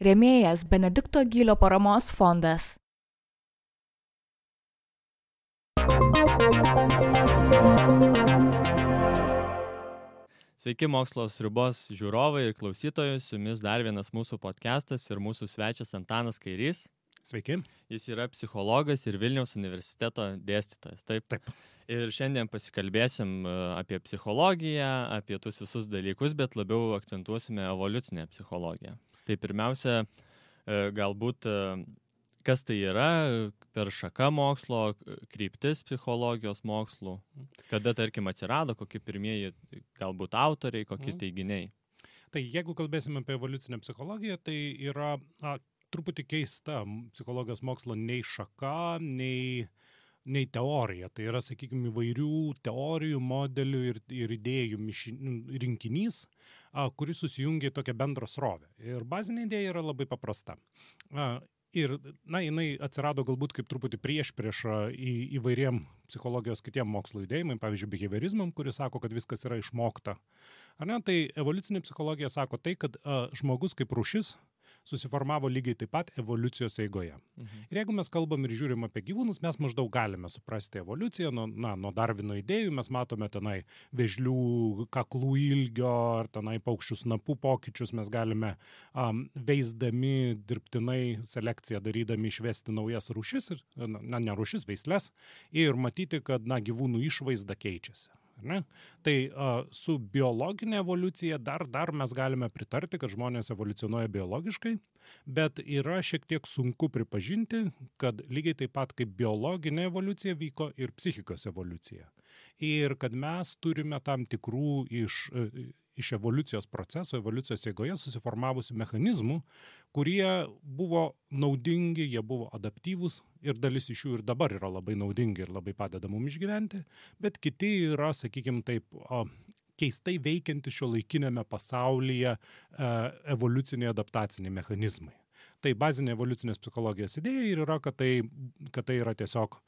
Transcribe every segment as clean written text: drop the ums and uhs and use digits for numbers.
Rėmėjas Benedikto Gylio paramos fondas. Sveiki mokslo sriubos žiūrovai ir klausytojai, su jumis dar vienas mūsų podcastas ir mūsų svečias Antanas Kairys. Sveiki. Jis yra psichologas ir Vilniaus universiteto dėstytojas. Taip. Ir šiandien pasikalbėsim apie psichologiją, apie tuos visus dalykus, bet labiau akcentuosime evoliucinę psichologiją. Tai pirmiausia, galbūt kas tai yra per šaka mokslo, kryptis psichologijos mokslų, kada, tarkim, atsirado, kokie pirmieji galbūt autoriai, kokie teiginiai. Tai jeigu kalbėsime apie evoliucinę psichologiją, tai yra truputį keista psichologijos mokslo nei šaka, nei teorija. Tai yra, sakykime, įvairių teorijų, modelių ir idėjų rinkinys, kuris susijungia į tokią bendrą srovę. Ir bazinė idėja yra labai paprasta. Ir, jinai atsirado galbūt kaip truputį priešpriešą įvairiem psichologijos kitiem mokslo judėjimai, pavyzdžiui, behaviorizmam, kuris sako, kad viskas yra išmokta. Ar ne? Tai evoliucinė psichologija sako tai, kad žmogus kaip rūšis susiformavo lygiai taip pat evoliucijos eigoje. Ir jeigu mes kalbam ir žiūrim apie gyvūnus, mes maždaug galime suprasti evoliuciją, nuo Darvino idėjų mes matome tenai vėžlių kaklų ilgio ar tenai paukščių snapų pokyčius, mes galime veisdami dirbtinai selekciją darydami išvesti naujas rūšis, ne rūšis, veisles, ir matyti, kad gyvūnų išvaizda keičiasi. Ne? Tai su biologinė evoliucija dar mes galime pritarti, kad žmonės evoliucionuoja biologiškai, bet yra šiek tiek sunku pripažinti, kad lygiai taip pat kaip biologinė evoliucija vyko ir psichikos evoliucija. Ir kad mes turime tam tikrų iš evoliucijos proceso, evoliucijos eigoje susiformavusių mechanizmų, kurie buvo naudingi, jie buvo adaptyvūs ir dalis iš jų ir dabar yra labai naudingi ir labai padeda mums išgyventi, bet kiti yra, sakykime taip, keistai veikianti šiuolaikinėme pasaulyje evoliuciniai adaptaciniai mechanizmai. Tai bazinė evoliucinės psichologijos idėja ir yra, kad tai yra tiesiog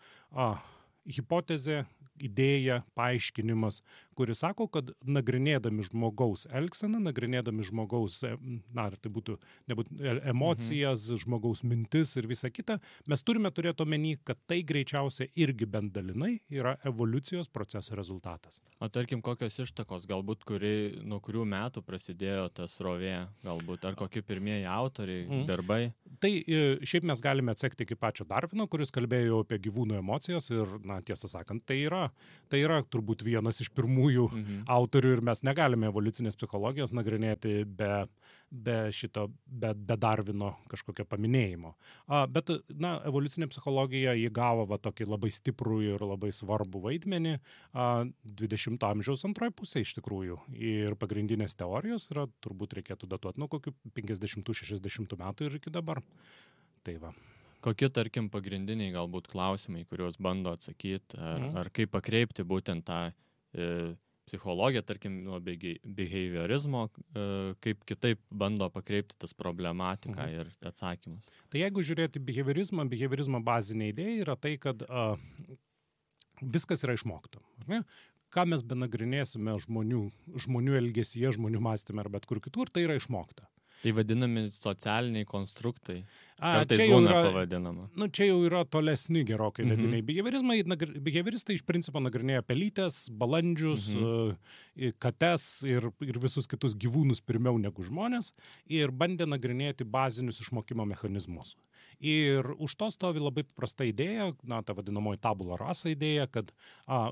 hipotezė, idėja, paaiškinimas, kuris sako, kad nagrinėdami žmogaus elgseną, nagrinėdami žmogaus, tai būtų emocijas, žmogaus mintis ir visa kita, mes turime turėti omeny, kad tai greičiausiai irgi bent dalinai yra evoliucijos proceso rezultatas. O tarkim, kokios ištakos, galbūt nuo kurių metų prasidėjo ta srovė, galbūt, ar kokie pirmieji autoriai, darbai? Tai šiaip mes galime atsekti iki pačio Darvino, kuris kalbėjo apie gyvūnų emocijas ir, tiesą sakant, tai yra turbūt vienas iš pirmųjų autorių ir mes negalime evoliucinės psichologijos nagrinėti be Darvino kažkokio paminėjimo. Bet, evoliucinė psichologija įgavo tokį labai stiprų ir labai svarbų vaidmenį 20 amžiaus antroje pusėje iš tikrųjų. Ir pagrindinės teorijos yra, turbūt reikėtų datuoti nuo kokių 50-60 metų ir iki dabar. Tai va. Kokie, tarkim, pagrindiniai galbūt klausimai, kuriuos bando atsakyti, ar kaip pakreipti būtent tą psichologiją, tarkim, nuo behaviorizmo, kaip kitaip bando pakreipti tas problematiką ir atsakymus. Tai jeigu žiūrėti behaviorizmo bazinė idėja yra tai, kad viskas yra išmokta. Ar ne? Ką mes benagrinėsime žmonių elgesyje, žmonių mąstyme ar bet kur kitur, tai yra išmokta. Tai vadinami socialiniai konstruktai. Kartais būna pavadinama. Čia jau yra tolesni gerokai vediniai. Behavioristai iš principo nagrinėja pelytes, balandžius, kates ir visus kitus gyvūnus pirmiau negu žmonės ir bandė nagrinėti bazinius išmokimo mechanizmus. Ir už to stovi labai paprasta idėja, ta vadinamoji tabula rasa idėja, kad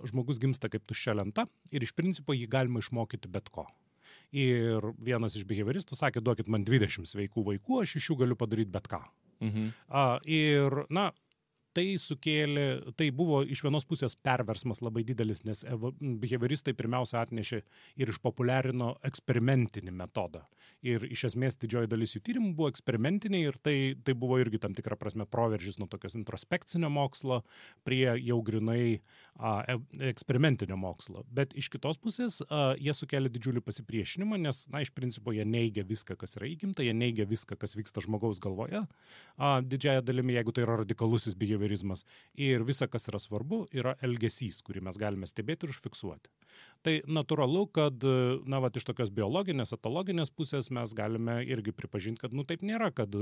žmogus gimsta kaip tuščia lenta ir iš principo jį galima išmokyti bet ko. Ir vienas iš behavioristų sakė, duokit man 20 sveikų vaikų, aš iš jų galiu padaryti bet ką. Ir, tai buvo iš vienos pusės perversmas labai didelis, nes behavioristai pirmiausia atnešė ir išpopuliarino eksperimentinį metodą. Ir iš esmės didžioji dalis jų tyrimų buvo eksperimentiniai ir tai buvo irgi tam tikra prasme proveržis nuo tokios introspekcinio mokslo prie jau grinai eksperimentinio mokslo. Bet iš kitos pusės jie sukelia didžiulį pasipriešinimą, nes, iš principo jie neigia viską, kas yra įgimta, jie neigia viską, kas vyksta žmogaus galvoje. Didžiąją dalimi, jeigu tai yra radikalusis behaviorizmas, behaviorizmas. Ir visa, kas yra svarbu, yra elgesys, kurį mes galime stebėti ir užfiksuoti. Tai natūralu, kad iš tokios biologinės, etologinės pusės mes galime irgi pripažinti, kad taip nėra, kad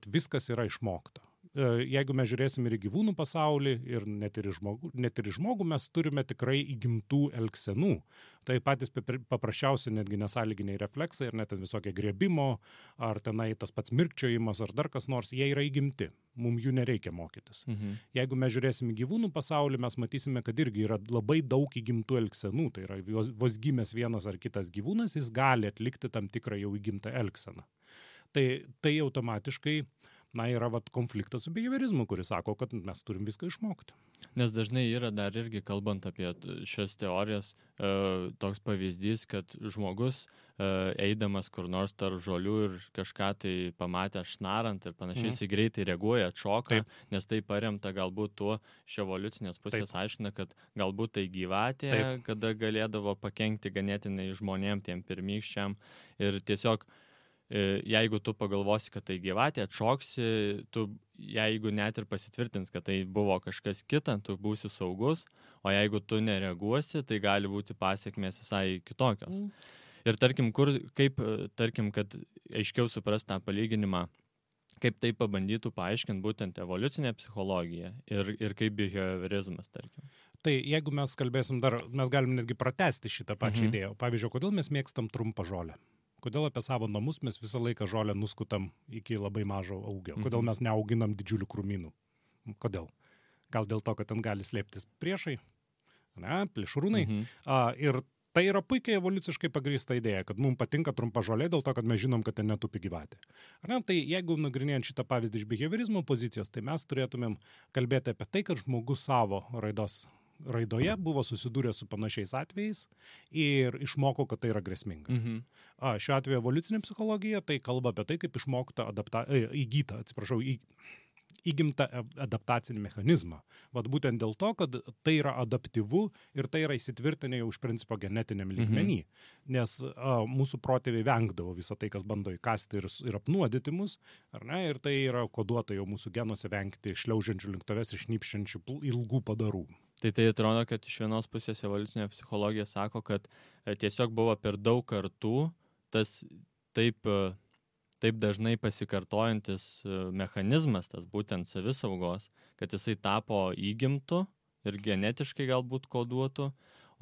viskas yra išmokta. Jeigu mes žiūrėsim ir į gyvūnų pasaulį, ir net ir į žmogų mes turime tikrai įgimtų elgsenų. Tai patys paprasčiausi netgi nesąlyginiai refleksai, ir net visokie griebimo, ar tenai tas pats mirkčiojimas, ar dar kas nors, jie yra įgimti. Mums jų nereikia mokytis. Jeigu mes žiūrėsim į gyvūnų pasaulį, mes matysime, kad irgi yra labai daug įgimtų elgsenų. Tai yra vos gimęs vienas ar kitas gyvūnas, jis gali atlikti tam tikrą jau įgimtą elgseną. Tai automatiškai yra konfliktas su behaviorizmu, kuris sako, kad mes turim viską išmokti. Nes dažnai yra dar irgi, kalbant apie šias teorijas, toks pavyzdys, kad žmogus eidamas kur nors tarp žolių ir kažką tai pamatė šnarant ir panašiai, jis greitai reaguoja, atšoka, nes tai paremta galbūt tuo iš evoliucinės pusės aiškina, kad galbūt tai gyvatė, kada galėdavo pakenkti ganėtinai žmonėm, tiem pirmykščiam, ir tiesiog jeigu tu pagalvosi, kad tai gyvatė, atšoksi, tu, jeigu net ir pasitvirtins, kad tai buvo kažkas kita, tu būsi saugus, o jeigu tu nereaguosi, tai gali būti pasiekmės visai kitokios. Ir tarkim, kad aiškiau supras tą palyginimą, kaip tai pabandytų paaiškinti būtent evoliucinė psichologija ir kaip behaviorizmas, tarkim. Tai jeigu mes kalbėsim mes galim netgi pratęsti šitą pačią idėją. Pavyzdžiui, kodėl mes mėgstam trumpą žolę? Kodėl apie savo namus mes visą laiką žolę nuskutam iki labai mažo augio? Kodėl mes neauginam didžiulių krūmynų? Kodėl? Gal dėl to, kad ten gali slėptis priešai, plėšrūnai. Ir tai yra puikiai evoliuciškai pagrįsta idėja, kad mums patinka trumpa žolė dėl to, kad mes žinom, kad ten netupi gyvatė. Tai jeigu nagrinėjant šitą pavyzdį iš behaviorizmo pozicijos, tai mes turėtumėm kalbėti apie tai, kad žmogus savo raidoje buvo susidūręs su panašiais atvejais ir išmoko, kad tai yra grėsminga. Šiuo atveju evoliucinė psichologija tai kalba apie tai, kaip išmokta įgimtą adaptacinį mechanizmą. Būtent dėl to, kad tai yra adaptyvu ir tai yra įsitvirtinę jau iš principo genetiniam lygmenį. Nes mūsų protėviai vengdavo visą tai, kas bando įkasti ir apnuodyti mus, ir tai yra koduota jau mūsų genuose vengti šliaužiančių link tavęs ir šnipščiančių ilgų padarų. Tai atrodo, kad iš vienos pusės evoliucinė psichologija sako, kad tiesiog buvo per daug kartų tas taip dažnai pasikartojantis mechanizmas, tas būtent savisaugos, kad jisai tapo įgimtu ir genetiškai galbūt koduotu,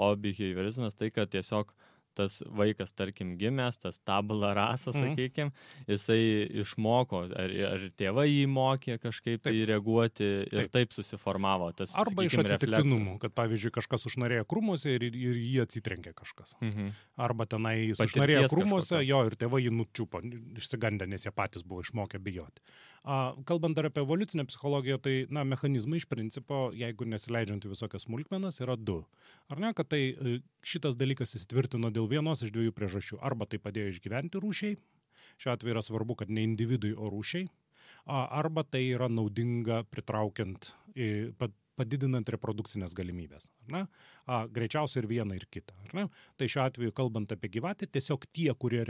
o behaviorizmas tai, kad tiesiog tas vaikas, tarkim, gimęs, tas tabula rasa, sakykime, jisai išmoko, ar tėvai jį mokė kažkaip tai reaguoti ir taip susiformavo tas, arba iš atsitiktinumų, kad pavyzdžiui kažkas užnarėjo krūmuose ir jį atsitrenkė kažkas. Arba tenai užnarėjo krūmuose, ir tėvai jį nučiupo, išsigandę, nes jie patys buvo išmokę bijoti. Kalbant dar apie evoliucinę psichologiją, tai mechanizmai iš principo, jeigu nesileidžiant į visokias smulkmenas, yra du. Ar ne, kad tai šitas dalykas įsitvirtino dėl vienos iš dviejų priežasčių. Arba tai padėjo išgyventi rūšiai, šiuo atveju yra svarbu, kad ne individui, o rūšiai, arba tai yra naudinga pritraukiant, padidinant reprodukcinės galimybės. Greičiausiai ir vieną, ir kitą. Tai šiuo atveju, kalbant apie gyvatę, tiesiog tie, kurie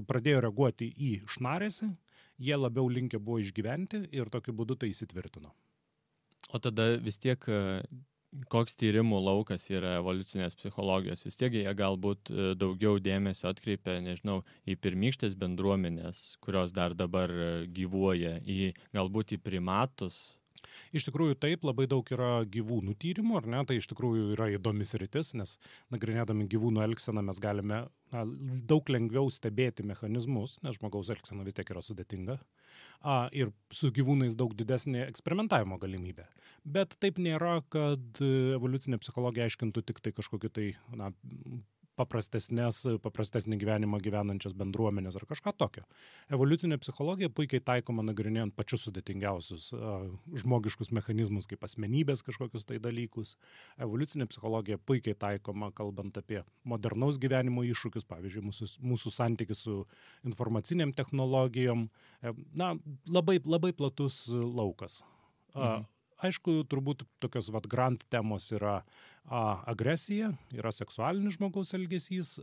pradėjo reaguoti į šnaresį, jie labiau linkę buvo išgyventi ir tokiu būdu tai įsitvirtino. O tada vis tiek koks tyrimų laukas yra evoliucinės psichologijos? Vis tiek jie galbūt daugiau dėmesio atkreipia, nežinau, į pirmykštės bendruomenės, kurios dar dabar gyvuoja, galbūt į primatus. Iš tikrųjų taip, labai daug yra gyvūnų tyrimų, ar ne? Tai iš tikrųjų yra įdomis sritis, nes nagrinėdami gyvūnų elgseną mes galime daug lengviau stebėti mechanizmus, nes žmogaus elgsena vis tiek yra sudėtinga. Ir su gyvūnais daug didesnė eksperimentavimo galimybė. Bet taip nėra, kad evoliucinė psichologija aiškintų tik tai kažkokį tai paprastesnį gyvenimą gyvenančias bendruomenės ar kažką tokio. Evoliucinė psichologija puikiai taikoma nagrinėjant pačius sudėtingiausius žmogiškus mechanizmus, kaip asmenybės kažkokius tai dalykus. Evoliucinė psichologija puikiai taikoma, kalbant apie modernaus gyvenimo iššūkius, pavyzdžiui, mūsų santykis su informaciniam technologijom. Labai, labai platus laukas. aišku, turbūt tokios grand temos yra agresija, yra seksualinis žmogaus elgesys,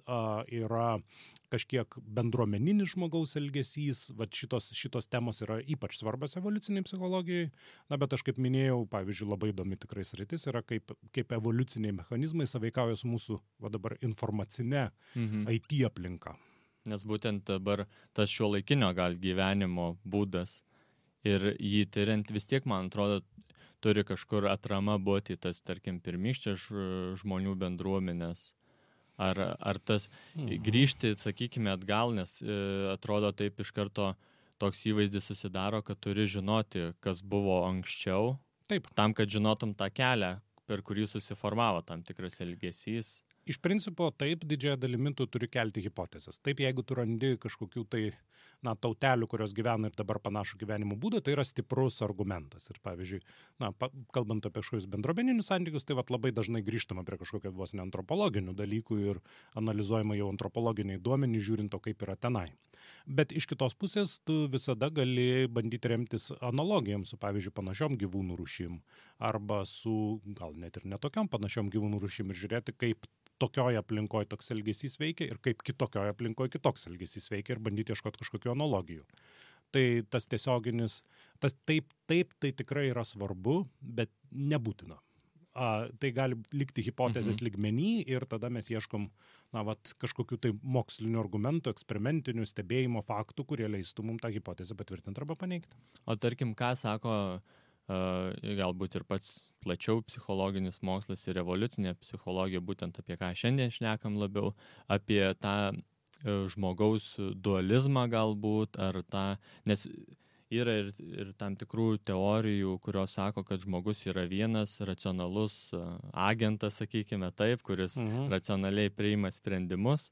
yra kažkiek bendruomeninis žmogaus elgesys, šitos temos yra ypač svarbios evoliuciniai psichologijai, bet aš kaip minėjau, pavyzdžiui, labai įdomi tikrai sritis yra, kaip evoliuciniai mechanizmai sąveikauja su mūsų dabar informacinė IT aplinka. Nes būtent dabar tas šiuolaikinio gal gyvenimo būdas ir jį tyriant vis tiek, man atrodo, turi kažkur atrama būti tas, tarkim, pirmykštės žmonių bendruomenės. Ar tas grįžti, sakykime, atgal, nes atrodo taip iš karto toks įvaizdis susidaro, kad turi žinoti, kas buvo anksčiau, Taip. Tam, kad žinotum tą kelią, per kurį susiformavo tam tikras elgesys. Iš principo, taip, didžiąją dalimi tu turi kelti hipotezes. Taip, jeigu tu randi kažkokių tai, tautelių, kurios gyvena ir dabar panašų gyvenimo būdą, tai yra stiprus argumentas. Ir pavyzdžiui, kalbant apie kažkokius bendruomeninius santykius, tai labai dažnai grįžtama prie kažkokio vos ne antropologinių dalykų ir analizuojama jau antropologiniai duomenys, žiūrint to, kaip yra tenai. Bet iš kitos pusės tu visada gali bandyti remtis analogijom su, pavyzdžiui, panašiom gyvūnų rūšim arba su, gal net ir netokiom panašiom gyvūnų rūšim ir žiūrėti, kaip tokioje aplinkoje toks elgesys veikia ir kaip kitokioje aplinkoje kitoks elgesys veikia ir bandyti ieškoti kažkokių analogijų. Tai tas tiesioginis, tai tikrai yra svarbu, bet nebūtina. Tai gali likti hipotezės lygmenį ir tada mes ieškom kažkokių tai mokslinių argumentų, eksperimentinių stebėjimo faktų, kurie leistų mums tą hipotezę patvirtinti arba paneigti. O tarkim, ką sako galbūt ir pats plačiau psichologinis mokslas ir evoliucinė psichologija, būtent apie ką šiandien šnekam labiau, apie tą žmogaus dualizmą galbūt, ar tą, nes yra ir tam tikrų teorijų, kurios sako, kad žmogus yra vienas racionalus agentas, sakykime taip, kuris racionaliai priima sprendimus.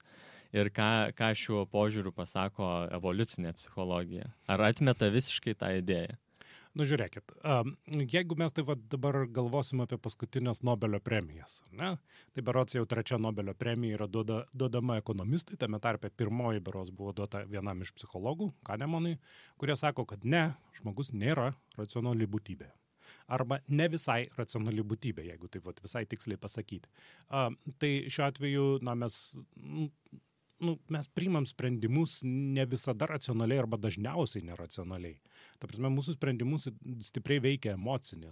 Ir ką šiuo požiūriu pasako evoliucinė psichologija? Ar atmeta visiškai tą idėją? Žiūrėkit, jeigu mes taip dabar galvosim apie paskutinės Nobelio premijas, ne? Tai berods jau 3 Nobelio premija yra duodama ekonomistui, tame tarpe 1 berods buvo duota vienam iš psichologų, Kahnemanui, kurie sako, kad ne, žmogus nėra racionali būtybė. Arba ne visai racionali būtybė, jeigu taip visai tiksliai pasakyti. Tai šiuo atveju mes priimam sprendimus ne visada racionaliai arba dažniausiai neracionaliai. Ta prasme, mūsų sprendimus stipriai veikia emocinė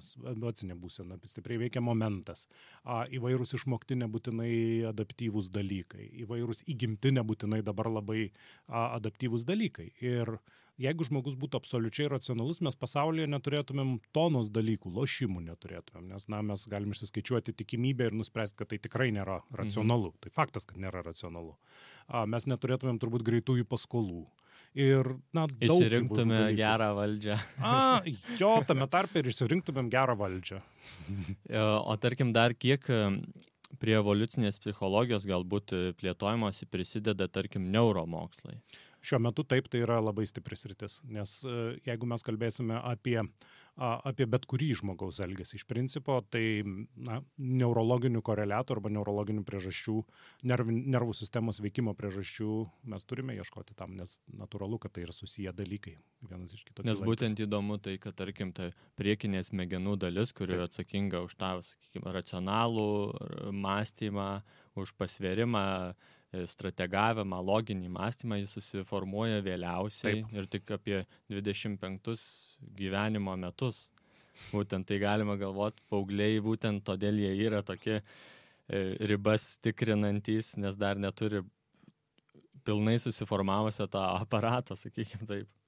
būsena, stipriai veikia momentas, įvairūs išmokti nebūtinai adaptyvūs dalykai, įvairūs įgimti nebūtinai dabar labai adaptyvūs dalykai. Ir jeigu žmogus būtų absoliučiai racionalus, mes pasaulyje neturėtumėm tonos dalykų, lošimų neturėtumėm, nes mes galim išsiskaičiuoti tikimybę ir nuspręsti, kad tai tikrai nėra racionalu. Tai faktas, kad nėra racionalu. Mes neturėtumėm turbūt greitųjų paskolų. Ir, išsirinktume gerą valdžią. Jo, tame tarpe ir išsirinktumėm gerą valdžią. O tarkim dar kiek prie evoliucinės psichologijos galbūt plėtojimosi prisideda, tarkim, neuromokslai? Šiuo metu taip, tai yra labai stipri sritis, nes jeigu mes kalbėsime apie bet kurį žmogaus elgesį iš principo, tai neurologinių koreliatų arba neurologinių priežasčių, nervų sistemos veikimo priežasčių mes turime ieškoti tam, nes natūralu, kad tai yra susiję dalykai vienas iš kito. Nes būtent įdomu tai, kad tarkim, ta priekinė smegenų dalis, kuri yra atsakinga už tą, sakykime, racionalų mąstymą, už pasvėrimą, strategavimą, loginį mąstymą, jis susiformuoja vėliausiai. Taip. Ir tik apie 25 gyvenimo metus. Būtent tai galima galvoti, paaugliai būtent todėl jie yra tokie ribas tikrinantys, nes dar neturi pilnai susiformavusio tą aparatą, sakykime taip.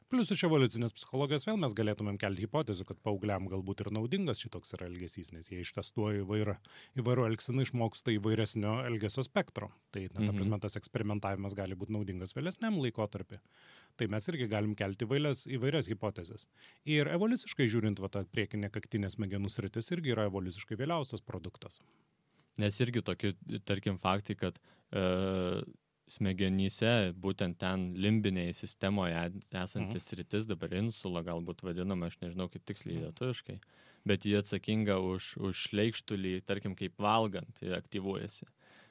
Plius iš evoliucinės psichologijos vėl mes galėtumėm kelti hipotezių, kad paaugliam galbūt ir naudingas šitoks yra elgesys, nes jie ištestuoja įvairų elgseną, išmoksta įvairesnio elgesio spektro. Tai, ta prasme, tas eksperimentavimas gali būti naudingas vėlesniam laikotarpį. Tai mes irgi galim kelti įvairias hipotezes. Ir evoliuciškai žiūrint, ta priekinė kaktinė smegenų sritis irgi yra evoliuciškai vėliausias produktas. Nes irgi tokie, tarkim, faktai, kad smegenyse, būtent ten limbinėje sistemoje esantis sritis, dabar insula galbūt vadinama, aš nežinau kaip tiksliai lietuviškai, bet jie atsakinga už šleikštulį, tarkim, kaip valgant, aktyvuojasi.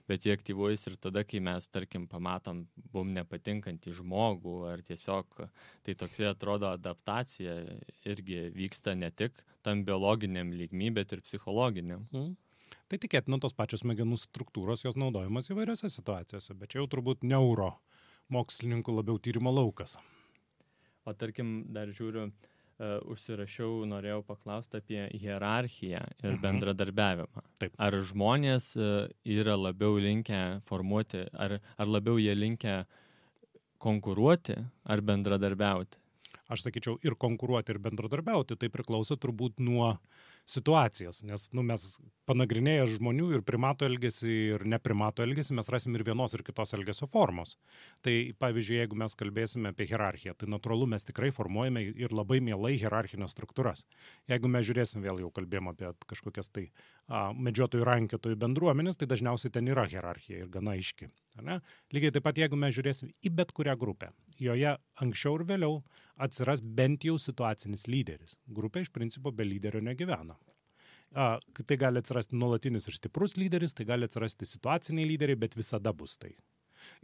bet jie aktyvuojasi ir tada, kai mes, tarkim, pamatom mum nepatinkantį žmogų, ar tiesiog tai toksai atrodo adaptacija irgi vyksta ne tik tam biologiniam lygmy, bet ir psichologiniam. Tai tikėtina tos pačios smegenų struktūros, jos naudojamas įvairiose situacijose, bet čia jau turbūt neuro mokslininkų labiau tyrimo laukas. O tarkim, dar žiūriu, užsirašiau, norėjau paklausti apie hierarchiją ir bendradarbiavimą. Taip. Ar žmonės yra labiau linkę formuoti, ar labiau jie linkę konkuruoti ar bendradarbiauti? Aš sakyčiau, ir konkuruoti, ir bendradarbiauti, tai priklauso turbūt nuo situacijos, nes mes panagrinėję žmonių ir primato elgesį, ir neprimato elgesį, mes rasim ir vienos, ir kitos elgesio formos. Tai pavyzdžiui, jeigu mes kalbėsime apie hierarchiją, tai natūralu mes tikrai formuojame ir labai mielai hierarchinės struktūras. Jeigu mes žiūrėsim, vėl jau kalbėjom apie kažkokias tai medžiotojų rankiotojų bendruomenės, tai dažniausiai ten yra hierarchija ir gana aiški. Ne? Lygiai taip pat, jeigu mes žiūrėsim į bet kurią grupę, joje anksčiau ir vėliau atsiras bent jau situacinis lyderis. Grupė iš principo be lyderio negyvena. Tai gali atsirasti nuolatinis ir stiprus lyderis, tai gali atsirasti situaciniai lyderiai, bet visada bus tai.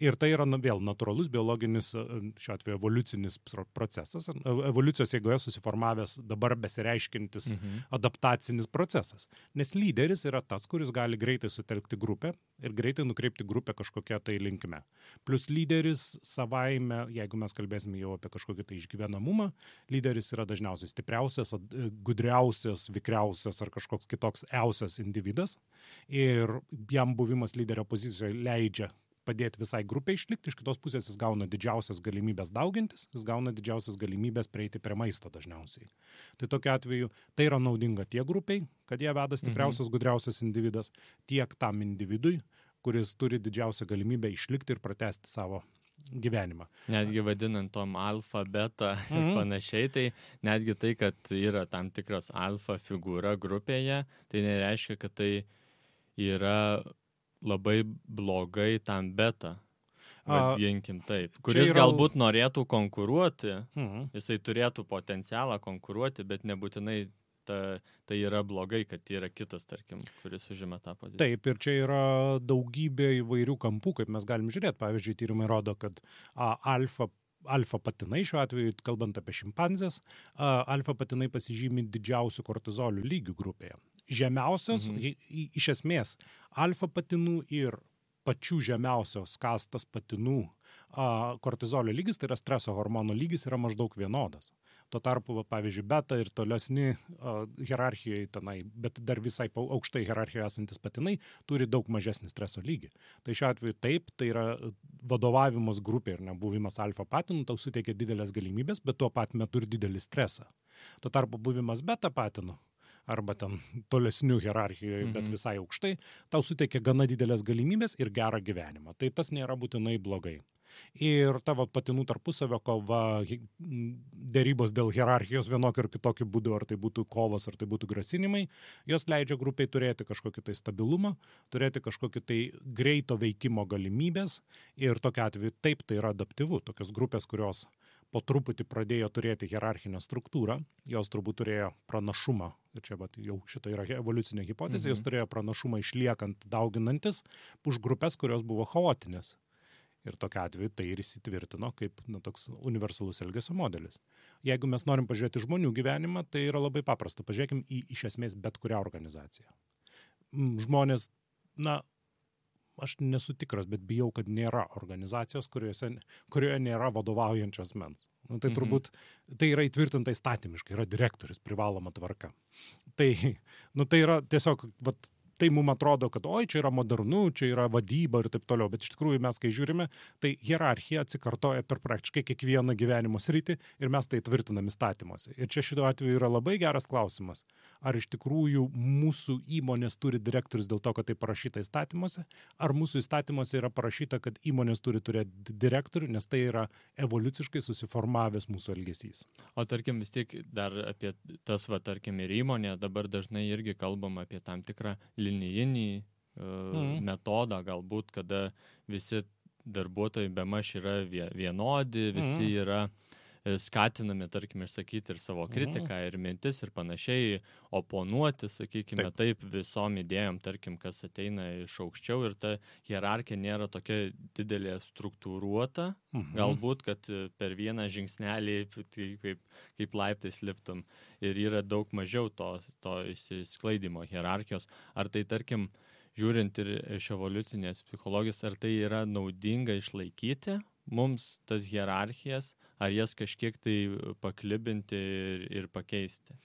Ir tai yra vėl natūralus biologinis, šiuo atveju evoliucinis procesas, evoliucijos eigoje susiformavęs dabar besireiškintis adaptacinis procesas. Nes lyderis yra tas, kuris gali greitai sutelkti grupę ir greitai nukreipti grupę kažkokią tai linkme. Plus lyderis savaime, jeigu mes kalbėsime jau apie kažkokį tai išgyvenamumą, lyderis yra dažniausiai stipriausias, gudriausias, vikriausias ar kažkoks kitoks iausias individas ir jam buvimas lyderio pozicijoje leidžia padėti visai grupiai išlikti, iš kitos pusės jis gauna didžiausias galimybės daugintis, jis gauna didžiausias galimybės prieiti prie maisto dažniausiai. Tai tokiu atveju tai yra naudinga tiek grupiai, kad jie veda stipriausias, gudriausias individas, tiek tam individui, kuris turi didžiausią galimybę išlikti ir pratęsti savo gyvenimą. Netgi vadinant tom alfa, beta ir panašiai, tai netgi tai, kad yra tam tikras alfa figūra grupėje, tai nereiškia, kad tai yra labai blogai tam beta, vadinkim taip, kuris galbūt norėtų konkuruoti, jisai turėtų potencialą konkuruoti, bet nebūtinai tai yra blogai, kad yra kitas, tarkim, kuris užima tą poziciją. Taip, ir čia yra daugybė įvairių kampų, kaip mes galim žiūrėti. Pavyzdžiui, tyrimai rodo, kad alfa patinai, šiuo atveju, kalbant apie šimpanzės, alfa patinai pasižymi didžiausių kortizolių lygių grupėje. Žemiausios, iš esmės, alfa patinų ir pačių žemiausios kastos patinų kortizolio lygis, tai yra streso hormono lygis, yra maždaug vienodas. Tuo tarpu, pavyzdžiui, beta ir tolesni hierarchijoje tenai, bet dar visai aukštai hierarchijoje esantis patinai turi daug mažesnį streso lygį. Tai šiuo atveju taip, tai yra vadovavimas grupė ir nebuvimas alfa patinų, tau suteikia didelės galimybės, bet tuo pat metu ir didelį stresą. Tuo tarpu buvimas beta patinų arba ten tolesnių hierarchijoje, bet visai aukštai, tau suteikia gana didelės galimybės ir gerą gyvenimą. Tai tas nėra būtinai blogai. Ir tavo patinų tarpusavio kova, dėrybos dėl hierarchijos vienokiu ar kitokiu būdu, ar tai būtų kovos, ar tai būtų grasinimai, jos leidžia grupiai turėti kažkokį tai stabilumą, turėti kažkokį tai greito veikimo galimybės ir tokiu atveju taip tai yra adaptyvu. Tokios grupės, kurios po truputį pradėjo turėti hierarchinę struktūrą, jos turbūt turėjo pranašumą, ir čia jau šita yra evoliucinė hipotezė, jos turėjo pranašumą išliekant, dauginantis už grupės, kurios buvo chaotinės. Ir tokiu atveju tai ir įsitvirtino kaip toks universalus elgesio modelis. Jeigu mes norim pažiūrėti žmonių gyvenimą, tai yra labai paprasta. Pažiūrėkim į iš esmės bet kurią organizaciją. Žmonės, aš nesu tikras, bet bijau, kad nėra organizacijos, kurioje nėra vadovaujančios mens. Tai turbūt, tai yra įtvirtinta įstatymiškai, yra direktorius, privaloma tvarka. Tai yra tiesiog, tai mums atrodo, kad čia yra modernu, čia yra vadyba ir taip toliau, bet iš tikrųjų mes, kai žiūrime, tai hierarchija atsikartoja per praktiškai kiekvieną gyvenimo sritį ir mes tai tvirtinam įstatymuose. Ir čia šituo atveju yra labai geras klausimas, ar iš tikrųjų mūsų įmonės turi direktorius dėl to, kad tai parašyta įstatymuose, ar mūsų įstatymuose yra parašyta, kad įmonės turi turėti direktorių, nes tai yra evoliuciškai susiformavęs mūsų elgesys. O tarkim vis tiek dar apie tas, tarkim, ir įmonė, dabar dažnai irgi kalbam apie tam tikrą linijinį metodą, galbūt, kada visi darbuotojai bemaž yra vienodi, visi yra skatinami, tarkim, išsakyti ir savo kritiką, ir mintis, ir panašiai, oponuoti, sakykime, taip visom idėjom, tarkim, kas ateina iš aukščiau, ir ta hierarchija nėra tokia didelė struktūruota, galbūt, kad per vieną žingsnelį kaip laiptais liptum, ir yra daug mažiau to išsisklaidimo hierarchijos. Ar tai, tarkim, žiūrint ir iš evoliucinės psichologijos, ar tai yra naudinga išlaikyti mums tas hierarchijas, ar jas kažkiek tai paklibinti ir pakeisti?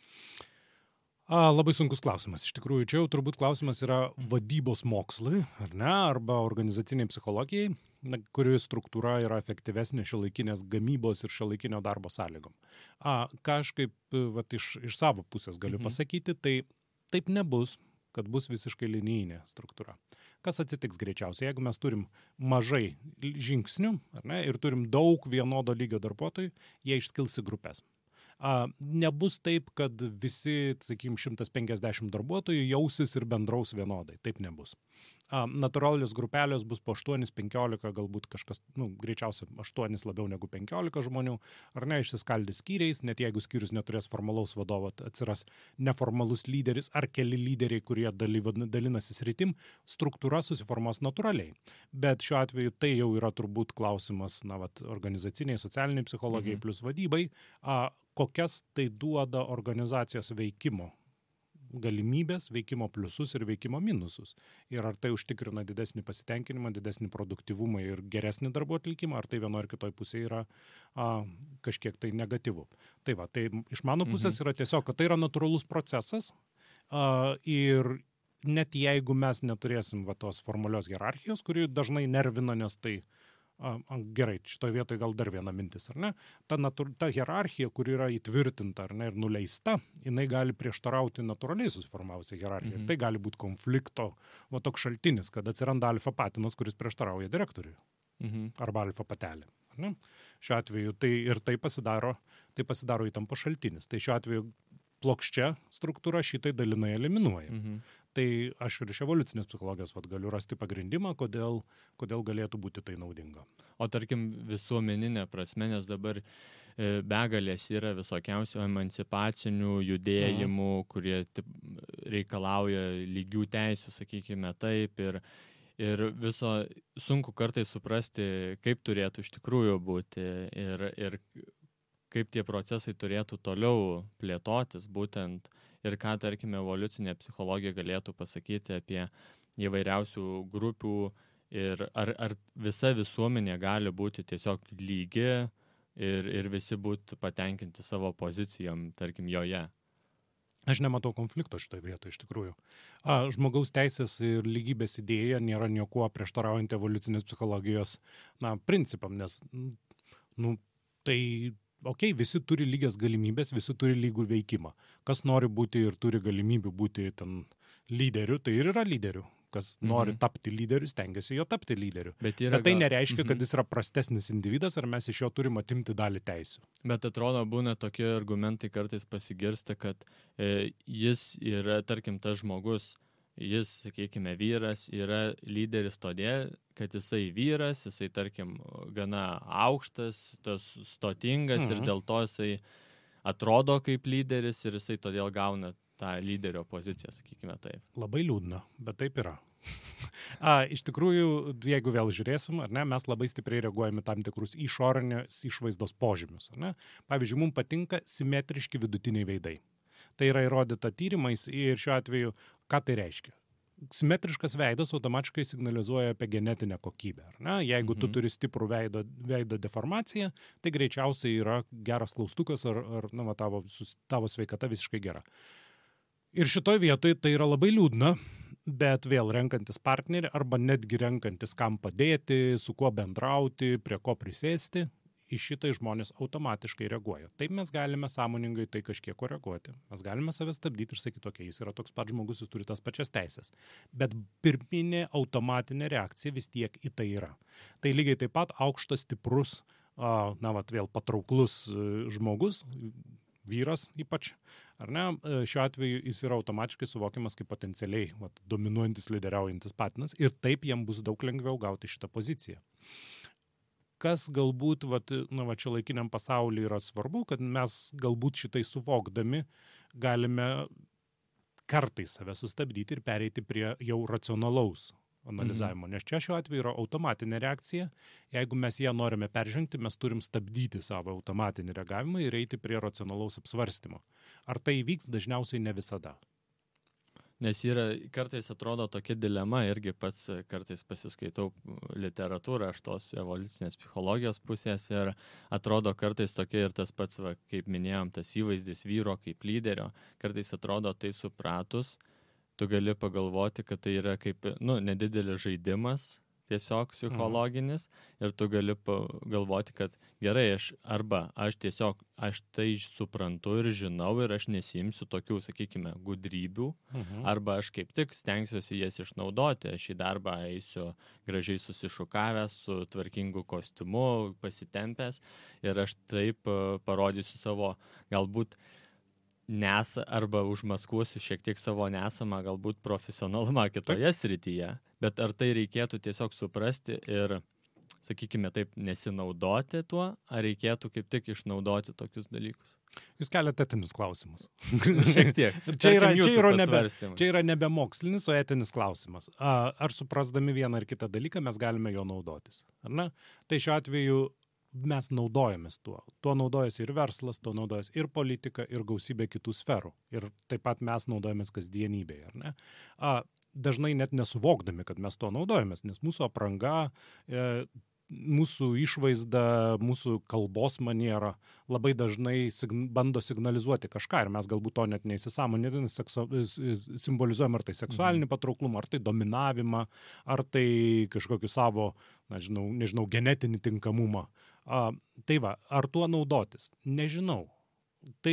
Labai sunkus klausimas. Iš tikrųjų, čia jau turbūt klausimas yra vadybos mokslui, ar ne, arba organizaciniai psichologijai, kuri struktūra yra efektyvesnė šiuolaikinės gamybos ir šiuolaikinio darbo sąlygom. Ką aš kaip iš savo pusės galiu pasakyti, tai taip nebus, kad bus visiškai linijinė struktūra. Kas atsitiks greičiausiai, jeigu mes turim mažai žingsnių, ar ne, ir turim daug vienodo lygio darbuotojų, jie išskils į grupės. Nebus taip, kad visi, sakykim, 150 darbuotojų jausis ir bendraus vienodai. Taip nebus. Natūralios grupelės bus po 8-15, galbūt kažkas, greičiausiai 8 labiau negu 15 žmonių, ar ne, išsiskaldys skyriais, net jeigu skyrius neturės formalaus vadovo, atsiras neformalus lyderis ar keli lyderiai, kurie dalinasi sritim, struktūra susiformuos natūraliai. Bet šiuo atveju tai jau yra turbūt klausimas, organizaciniai, socialiniai psichologijai plus vadybai, kokias tai duoda organizacijos veikimo galimybės, veikimo pliusus ir veikimo minusus. Ir ar tai užtikrina didesnį pasitenkinimą, didesnį produktyvumą ir geresnį darbo atlikimą, ar tai vienoje ar kitoje pusėje yra kažkiek tai negatyvu. Tai iš mano pusės yra tiesiog, kad tai yra natūralus procesas ir net jeigu mes neturėsim tos formalios hierarchijos, kuri dažnai nervina, nes tai gerai, šitoje vietoje gal dar viena mintis, ar ne? Ta hierarchija, kuri yra įtvirtinta, ar ne, ir nuleista, jinai gali prieštarauti natūraliai susiformavusią hierarchiją. Ir tai gali būti konflikto, toks šaltinis, kad atsiranda alfa patinas, kuris prieštarauja direktoriui. Arba alfa patelė. Ar ne? Šiuo atveju tai pasidaro įtampo šaltinis. Tai šiuo atveju plokščia struktūra šitai dalinai eliminuoja. Tai aš ir iš evoliucinės psichologijos galiu rasti pagrindimą, kodėl galėtų būti tai naudinga. O tarkim visuomeninė prasme, nes dabar begalės yra visokiausių emancipacinių judėjimų, kurie reikalauja lygių teisių, sakykime taip, ir viso sunku kartais suprasti, kaip turėtų iš tikrųjų būti ir kaip tie procesai turėtų toliau plėtotis būtent ir ką, tarkime, evoliucinė psichologija galėtų pasakyti apie įvairiausių grupių ir ar visa visuomenė gali būti tiesiog lygi ir visi būtų patenkinti savo pozicijom, tarkim, joje. Aš nematau konflikto šitoje vietoje, iš tikrųjų. Žmogaus teisės ir lygybės idėja nėra niekuo prieštaraujant evoliucinės psichologijos principam, nes visi turi lygias galimybės, visi turi lygų veikimą. Kas nori būti ir turi galimybių būti ten lyderiu, tai ir yra lyderiu. Kas nori tapti lyderiu, stengiasi jo tapti lyderiu. Bet tai nereiškia, kad jis yra prastesnis individas, ar mes iš jo turim atimti dalį teisių. Bet atrodo, būna tokie argumentai kartais pasigirsta, kad jis yra, tarkim, tas žmogus, jis, sakykime, vyras, yra lyderis todėl, kad jisai vyras, jisai, tarkim, gana aukštas, tas stotingas ir dėl to jisai atrodo kaip lyderis ir jisai todėl gauna tą lyderio poziciją, sakykime taip. Labai liūdna, bet taip yra. Iš tikrųjų, jeigu vėl žiūrėsim, ar ne, mes labai stipriai reaguojame tam tikrus išorinės išvaizdos požymius. Ar ne? Pavyzdžiui, mums patinka simetriški vidutiniai veidai. Tai yra įrodyta tyrimais ir šiuo atveju, ką tai reiškia? Simetriškas veidas automatiškai signalizuoja apie genetinę kokybę. Ar ne? Jeigu tu turi stiprų veido deformaciją, tai greičiausiai yra geras klaustukas ar tavo sveikata visiškai gera. Ir šitoj vietoj tai yra labai liūdna, bet vėl renkantis partnerį arba netgi renkantis kam padėti, su kuo bendrauti, prie ko prisėsti, į šitai žmonės automatiškai reaguoja. Taip mes galime sąmoningai tai kažkiek koreguoti. Mes galime save stabdyti ir sakyti, okei, jis yra toks pat žmogus, jis turi tas pačias teisės. Bet pirminė automatinė reakcija vis tiek į tai yra. Tai lygiai taip pat aukštas, stiprus, vėl patrauklus žmogus, vyras ypač, ar ne, šiuo atveju jis yra automatiškai suvokiamas kaip potencialiai dominuojantis, lyderiaujantis patinas ir taip jam bus daug lengviau gauti šitą poziciją. kas galbūt čia laikiniam pasaulyje yra svarbu, kad mes galbūt šitai suvokdami galime kartais save sustabdyti ir pereiti prie jau racionalaus analizavimo. Nes čia šiuo atveju yra automatinė reakcija. Jeigu mes ją norime peržengti, mes turim stabdyti savo automatinį reagavimą ir eiti prie racionalaus apsvarstymo. Ar tai įvyks? Dažniausiai ne visada. Nes kartais atrodo tokia dilema, irgi pats kartais pasiskaitau literatūrą iš tos evoliucinės psichologijos pusės ir atrodo kartais tokia ir tas pats, kaip minėjom, tas įvaizdis vyro kaip lyderio, kartais atrodo tai supratus, tu gali pagalvoti, kad tai yra kaip, nedidelis žaidimas, tiesiog psichologinis, ir tu gali pagalvoti, kad gerai, aš tai suprantu ir žinau ir aš nesiimsiu tokių, sakykime, gudrybių, arba aš kaip tik stengsiuosi jas išnaudoti, aš į darbą eisiu gražiai susišukavęs, su tvarkingu kostiumu, pasitempęs ir aš taip parodysiu savo galbūt arba užmaskuosiu šiek tiek savo nesamą galbūt profesionalumą kitoje srityje, bet ar tai reikėtų tiesiog suprasti ir, sakykime taip, nesinaudoti tuo, ar reikėtų kaip tik išnaudoti tokius dalykus? Jūs keliate etinius klausimus. Šiek tiek. Čia yra nebe mokslinis, o etinis klausimas. Ar suprasdami vieną ar kitą dalyką mes galime jo naudotis? Ar ne? Tai šiuo atveju mes naudojamės tuo. Tuo naudojasi ir verslas, tuo naudojasi ir politika, ir gausybė kitų sferų. Ir taip pat mes naudojamės kasdienybėje, ar ne? Dažnai net nesuvokdami, kad mes tuo naudojamės, nes mūsų apranga, mūsų išvaizda, mūsų kalbos maniera labai dažnai bando signalizuoti kažką ir mes galbūt to net neįsisąmoninami simbolizuojam ar tai seksualinį patrauklumą, ar tai dominavimą, ar tai kažkokį savo, nežinau, genetinį tinkamumą. Tai ar tuo naudotis? Nežinau. Tai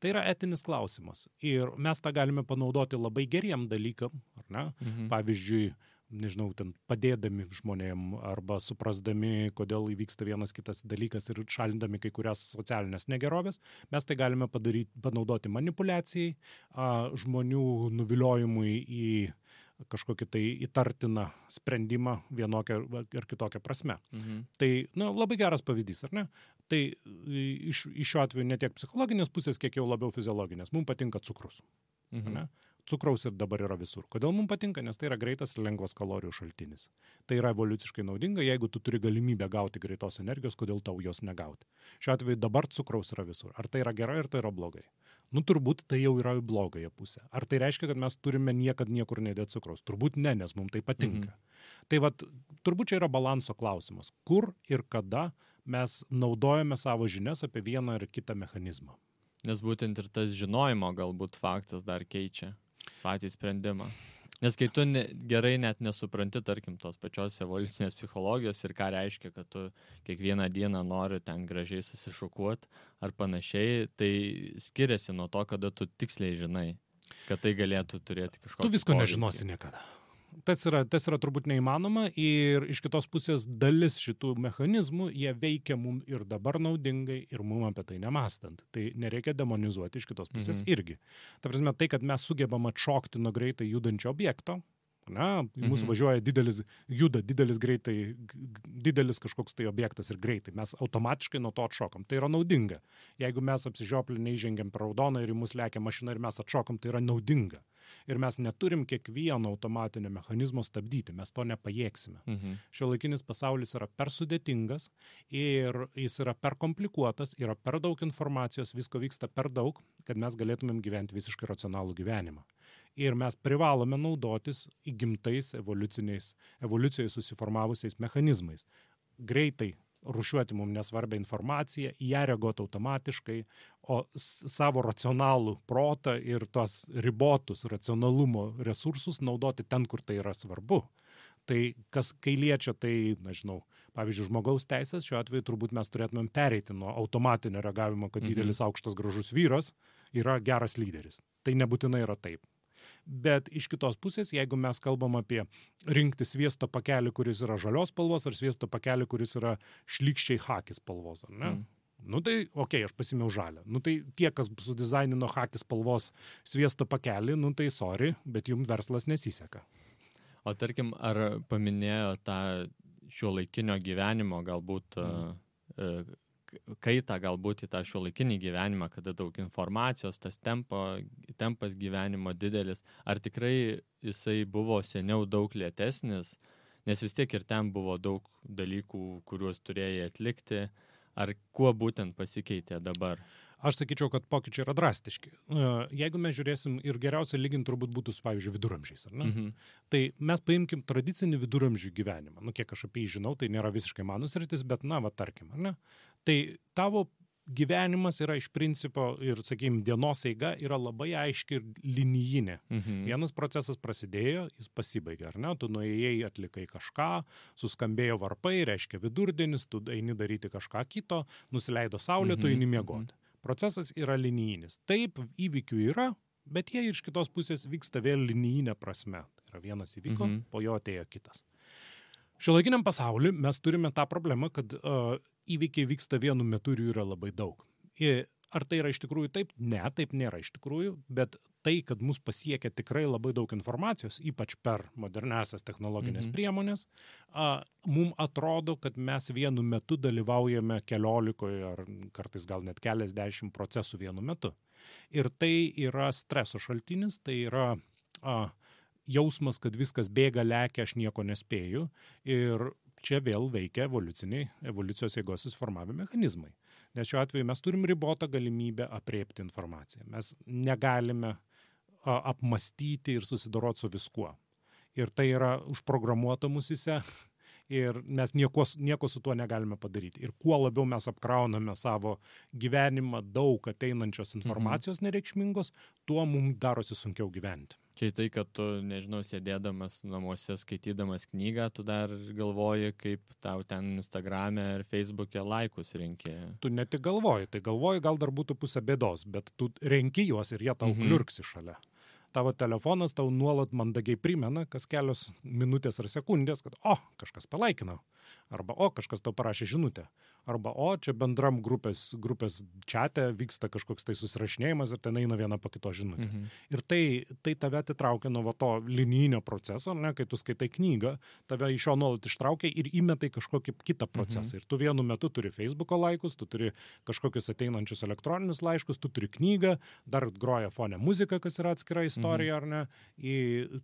yra etinis klausimas ir mes tą galime panaudoti labai geriem dalykam, ar ne? Pavyzdžiui, nežinau, padėdami žmonėm arba suprasdami, kodėl įvyksta vienas kitas dalykas ir šalindami kai kurias socialinės negerovės, mes tai galime panaudoti manipulacijai, žmonių nuviliojimui į kažkokį tai įtartiną sprendimą vienokią ar kitokią prasme. Tai, labai geras pavyzdys, ar ne? Tai iš šiuo atveju ne tiek psichologinės pusės, kiek jau labiau fiziologinės. Mums patinka cukrus. Ne? Cukraus ir dabar yra visur. Kodėl mums patinka? Nes tai yra greitas ir lengvas kalorijų šaltinis. Tai yra evoliuciškai naudinga, jeigu tu turi galimybę gauti greitos energijos, kodėl tau jos negauti. Šiuo atveju dabar cukraus yra visur. Ar tai yra gerai, ar tai yra blogai? Turbūt tai jau yra į blogąją pusę. Ar tai reiškia, kad mes turime niekad niekur nedėti cukraus? Turbūt ne, nes mums tai patinka. Tai turbūt čia yra balanso klausimas. Kur ir kada mes naudojame savo žinias apie vieną ar kitą mechanizmą? Nes būtent ir tas žinojimo galbūt faktas dar keičia patį sprendimą. Nes kai tu gerai net nesupranti, tarkim, tos pačios evoliucinės psichologijos ir ką reiškia, kad tu kiekvieną dieną nori ten gražiai susišukuoti ar panašiai, tai skiriasi nuo to, kada tu tiksliai žinai, kad tai galėtų turėti kažkokį Tu visko nežinosi niekada. Tas yra turbūt neįmanoma ir iš kitos pusės dalis šitų mechanizmų, jie veikia mum ir dabar naudingai ir mum apie tai nemąstant. Tai nereikia demonizuoti iš kitos pusės irgi. Ta prasme, tai, kad mes sugebam atšokti nuo greitai judančio objekto, mūsų važiuoja didelis kažkoks tai objektas ir greitai. Mes automatiškai nuo to atšokam. Tai yra naudinga. Jeigu mes apsižioplinę įžengiam per raudoną ir į mus lekia mašina ir mes atšokam, tai yra naudinga. Ir mes neturim kiekvieno automatinio mechanizmo stabdyti. Mes to nepajėgsime. Šiuolaikinis pasaulis yra per sudėtingas ir jis yra per komplikuotas, yra per daug informacijos, visko vyksta per daug, kad mes galėtumėm gyventi visiškai racionalų gyvenimą. Ir mes privalome naudotis įgimtais evoliucijoje susiformavusiais mechanizmais. Greitai rūšiuoti mums nesvarbią informaciją, į ją reaguoti automatiškai, o savo racionalų protą ir tos ribotus racionalumo resursus naudoti ten, kur tai yra svarbu. Tai kai liečia tai, pavyzdžiui, žmogaus teisės, šiuo atveju turbūt mes turėtumėm pereiti nuo automatinio reagavimo, kad didelis aukštas gražus vyras yra geras lyderis. Tai nebūtinai yra taip. Bet iš kitos pusės, jeigu mes kalbam apie rinkti sviesto pakelį, kuris yra žalios spalvos, ar sviesto pakelį, kuris yra šlykščiai chaki spalvos, ar ne? Tai, aš pasimiau žalią. Tai tie, kas sudizainino chaki spalvos sviesto pakelį, tai sorry, bet jums verslas nesiseka. O tarkim, ar paminėjo tą šiuolaikinio gyvenimo galbūt kaitą galbūt į tą šiuolaikinį gyvenimą, kada daug informacijos, tas tempas gyvenimo didelis, ar tikrai jisai buvo seniau daug lėtesnis, nes vis tiek ir ten buvo daug dalykų, kuriuos turėjai atlikti, ar kuo būtent pasikeitė dabar? Aš sakyčiau, kad pokyčiai yra drastiški. Jeigu mes žiūrėsim ir geriausia lyginti turbūt būtų su, pavyzdžiui, viduramžiais, ar ne? Tai mes paimkim tradicinį viduramžių gyvenimą. Kiek aš apie jį žinau, tai nėra visiškai mano sritis, bet tarkim, ar ne? Tai tavo gyvenimas yra iš principo ir, sakykime, dienos eiga yra labai aiški ir linijinė. Vienas procesas prasidėjo, jis pasibaigė, ar ne? Tu nuėjai, atlikai kažką, suskambėjo varpai, reiškia vidurdienis, tu eini daryti kažką kito, nusileido saulė, tu eini miegoti. Procesas yra linijinis. Taip, įvykių yra, bet jie iš kitos pusės vyksta vėl linijinė prasme. Tai yra vienas įvyko, po jo atėjo kitas. Šiuolaikiniam pasauliu mes turime tą problemą, kad įvykiai vyksta vienu metu ir jų yra labai daug. Ar tai yra iš tikrųjų taip? Ne, taip nėra iš tikrųjų, bet tai, kad mus pasiekia tikrai labai daug informacijos, ypač per moderniasias technologinės priemonės, mums atrodo, kad mes vienu metu dalyvaujame 14 ar kartais gal net keliasdešimt procesų vienu metu. Ir tai yra streso šaltinis, tai yra jausmas, kad viskas bėga, lekia, aš nieko nespėju. Ir čia vėl veikia evoliucijos jėgos susiformavimo mechanizmai. Nes šiuo atveju mes turim ribotą galimybę apriepti informaciją. Mes negalime apmastyti ir susidoroti su viskuo. Ir tai yra užprogramuota musyse ir mes nieko su tuo negalime padaryti. Ir kuo labiau mes apkrauname savo gyvenimą daug ateinančios informacijos nereikšmingos, tuo mums darosi sunkiau gyventi. Čia tai, kad tu, nežinau, sėdėdamas namuose, skaitydamas knygą, tu dar galvoji, kaip tau ten Instagrame ir Facebook'e laikus renki. Tu ne tik galvoji, tai galvoji gal dar būtų pusė bėdos, bet tu renki juos ir jie tau kliurksi šalia. Tavo telefonas tau nuolat mandagiai primena, kas kelios minutės ar sekundės, kad kažkas palaikino, arba kažkas tau parašė žinutę, arba čia bendram grupės čate vyksta kažkoks tai susirašinėjimas ir ten eina viena po kitos žinutės. Ir tai tave atitraukia nuo to linijinio proceso, ne, kai tu skaitai knygą, tave iš jo nuolat ištraukia ir įmetai kažkokį kitą procesą. Ir tu vienu metu turi Facebook'o laikus, tu turi kažkokius ateinančius elektroninius laiškus, tu turi knygą, dar groja fone muzika, kas yra atskira istorija, ar ne,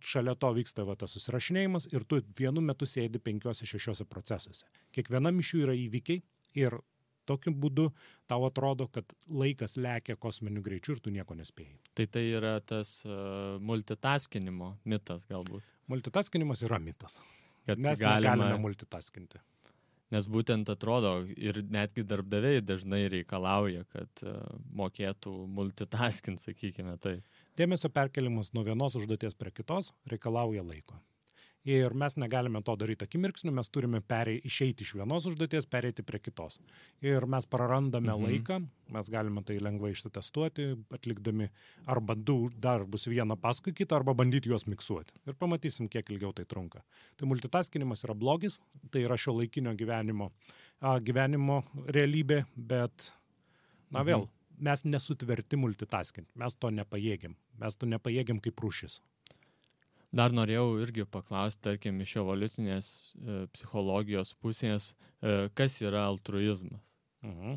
šalia to vyksta tas susirašinėjimas ir tu vienu metu sėdi 5-6 procesuose. Kiekvienam iš jų yra įvykiai ir tokiu būdu tau atrodo, kad laikas lekia kosminiu greičiu ir tu nieko nespėjai. Tai yra tas multitaskinimo mitas galbūt. Multitaskinimas yra mitas. Kad mes negalime multitaskinti. Nes būtent atrodo ir netgi darbdaviai dažnai reikalauja, kad mokėtų multitaskinti, sakykime tai. Dėmesio perkelimas nuo vienos užduoties prie kitos reikalauja laiko. Ir mes negalime to daryti akimirksniu, mes turime išeiti iš vienos užduoties, pereiti prie kitos. Ir mes prarandame laiką, mes galime tai lengvai išsitestuoti, atlikdami arba du darbus vieną paskui kitą, arba bandyti juos miksuoti. Ir pamatysim, kiek ilgiau tai trunka. Tai multitaskinimas yra blogis, tai yra šiuolaikinio gyvenimo realybė, bet, vėl, mes nesutverti multitaskinti, mes to nepajėgiam kaip rūšis. Dar norėjau irgi paklausti, tarkim, iš evoliucinės psichologijos pusės, kas yra altruizmas?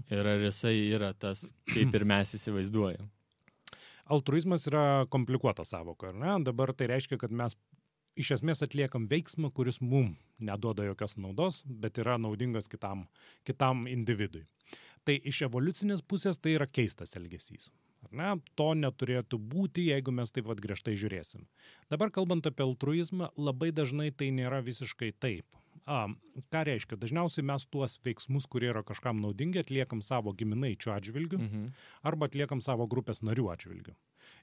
Ir ar jisai yra tas, kaip ir mes įsivaizduojam? Altruizmas yra komplikuota sąvoka, ar ne? Dabar tai reiškia, kad mes iš esmės atliekam veiksmą, kuris mum neduoda jokios naudos, bet yra naudingas kitam individui. Tai iš evoliucinės pusės tai yra keistas elgesys. To neturėtų būti, jeigu mes taip griežtai žiūrėsim. Dabar kalbant apie altruizmą, labai dažnai tai nėra visiškai taip. Ką reiškia? Dažniausiai mes tuos veiksmus, kurie yra kažkam naudingi, atliekam savo giminaičių atžvilgių arba atliekam savo grupės narių atžvilgių.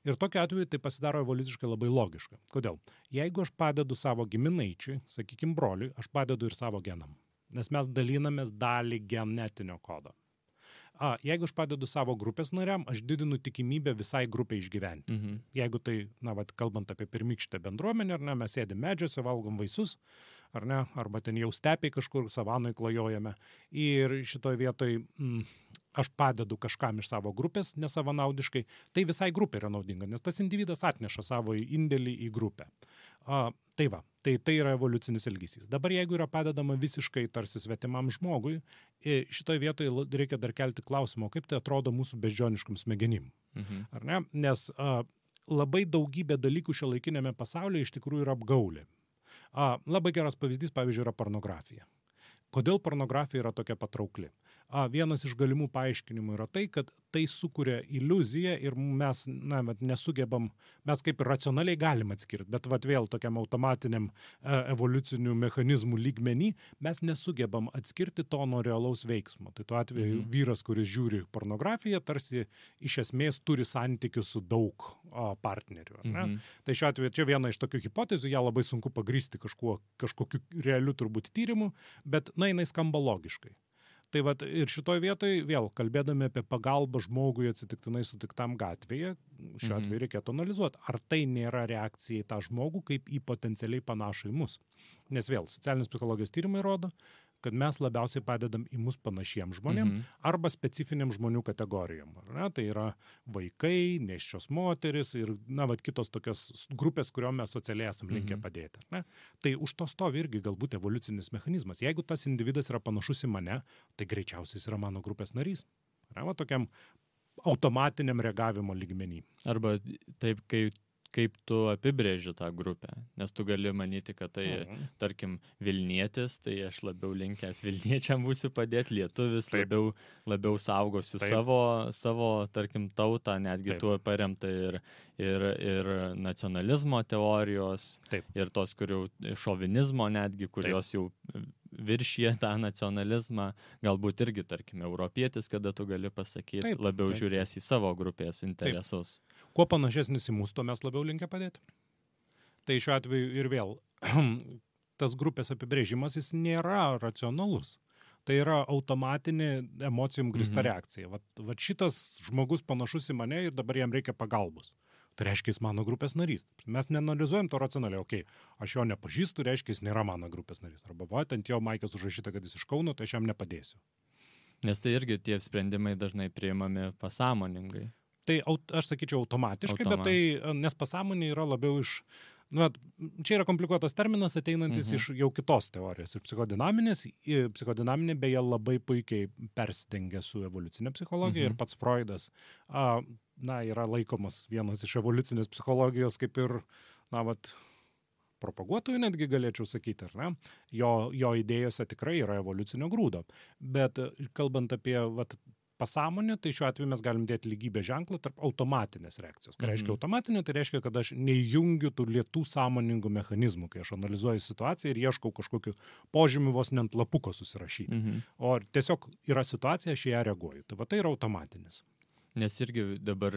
Ir tokiu atveju tai pasidaro evoliuciškai labai logiška. Kodėl? Jeigu aš padedu savo giminaičiui, sakykime broliui, aš padedu ir savo genam. Nes mes dalinamės dalį genetinio kodo. Jeigu aš padedu savo grupės nariam, aš didinu tikimybę visai grupiai išgyventi. Jeigu tai, kalbant apie pirmykštę bendruomenę, mes sėdim medžiuose, valgom vaisius, ar ne, arba ten jau stepiai kažkur savanoj klajojame. Ir šitoje vietoje aš padedu kažkam iš savo grupės nesavanaudiškai, tai visai grupė yra naudinga, nes tas individas atneša savo indėlį į grupę. Tai yra evoliucinis elgesys. Dabar jeigu yra padedama visiškai tarsi svetimam žmogui, šitoje vietoje reikia dar kelti klausimą, kaip tai atrodo mūsų beždžioniškam smegenim. Ar ne? Nes labai daugybė dalykų šiuolaikinėme pasaulyje iš tikrųjų yra apgaulė. Labai geras pavyzdys, pavyzdžiui, yra pornografija. Kodėl pornografija yra tokia patraukli? Vienas iš galimų paaiškinimų yra tai, kad tai sukuria iliuziją ir mes nesugebam, mes kaip ir racionaliai galim atskirti, bet vėl tokiam automatiniam evoliucinių mechanizmų lygmenį mes nesugebam atskirti to nuo realaus veiksmo. Tai tuo atveju vyras, kuris žiūri pornografiją, tarsi iš esmės turi santykius su daug partnerių. Tai šiuo atveju čia viena iš tokių hipotezių, ją labai sunku pagrysti kažkokiu realiu turbūt tyrimu, bet jinai skamba logiškai. Tai ir šitoj vietoj vėl kalbėdami apie pagalbą žmogui atsitiktinai sutiktam gatvėje, šiuo atveju reikėtų analizuoti, ar tai nėra reakcija į tą žmogų kaip į potencialiai panašų į mus. Nes vėl socialinės psichologijos tyrimai rodo, kad mes labiausiai padedam į mus panašiem žmonėm arba specifiniam žmonių kategorijom. Tai yra vaikai, nėščios moteris ir kitos tokios grupės, kuriuom mes socialiai esam linkę padėti. Tai už to stovi irgi galbūt evoliucinis mechanizmas. Jeigu tas individas yra panašus į mane, tai greičiausiai jis yra mano grupės narys. Tokiam automatiniam reagavimo lygmenį. Arba taip, kaip tu apibrėži tą grupę, nes tu gali manyti, kad tai, tarkim, Vilnietis, tai aš labiau linkęs Vilniečiam būsiu padėti, lietuvis labiau saugosiu savo, tarkim, tautą, netgi tuo paremta ir nacionalizmo teorijos, ir tos, kurių šovinizmo netgi, kurios jau viršyje tą nacionalizmą, galbūt irgi, tarkim, europietis, kada tu gali pasakyti, labiau žiūrės į savo grupės interesus. Kuo panašesnis į mūsų, to mes labiau linkę padėti. Tai šiuo atveju ir vėl, tas grupės apibrėžimas, jis nėra racionalus. Tai yra automatinė emocijom grįsta reakcija. Vat šitas žmogus panašus į mane ir dabar jam reikia pagalbos. Tai reiškia, jis mano grupės narys. Mes neanalizuojam to racionaliai. Aš jo nepažįstu, reiškia, jis nėra mano grupės narys. Arba ant jo maikės užrašyta, kad jis iš Kauno, tai aš jam nepadėsiu. Nes tai irgi tie sprendimai dažnai priimami pasąmoningai. Tai aš sakyčiau automatiškai, bet tai, nes pasąmonė yra labiau iš... čia yra komplikuotas terminas, ateinantis iš jau kitos teorijos. Ir psichodinaminė beje labai puikiai persidengia su evoliucinė psichologija ir pats Freudas yra laikomas vienas iš evoliucinės psichologijos kaip ir, propaguotojų netgi galėčiau sakyti, ar ne? Jo idėjose tikrai yra evoliucinio grūdo. Bet kalbant apie pasąmonę, tai šiuo atveju mes galim dėti lygybę ženklą tarp automatinės reakcijos. Ką reiškia automatinė, tai reiškia, kad aš neįjungiu tų lėtų sąmoningų mechanizmų, kai aš analizuoju situaciją ir ieškau kažkokiu požymiu vos ne ant lapuko susirašyti. O tiesiog yra situacija, aš į ją reaguoju. Tai yra automatinis. Nes irgi dabar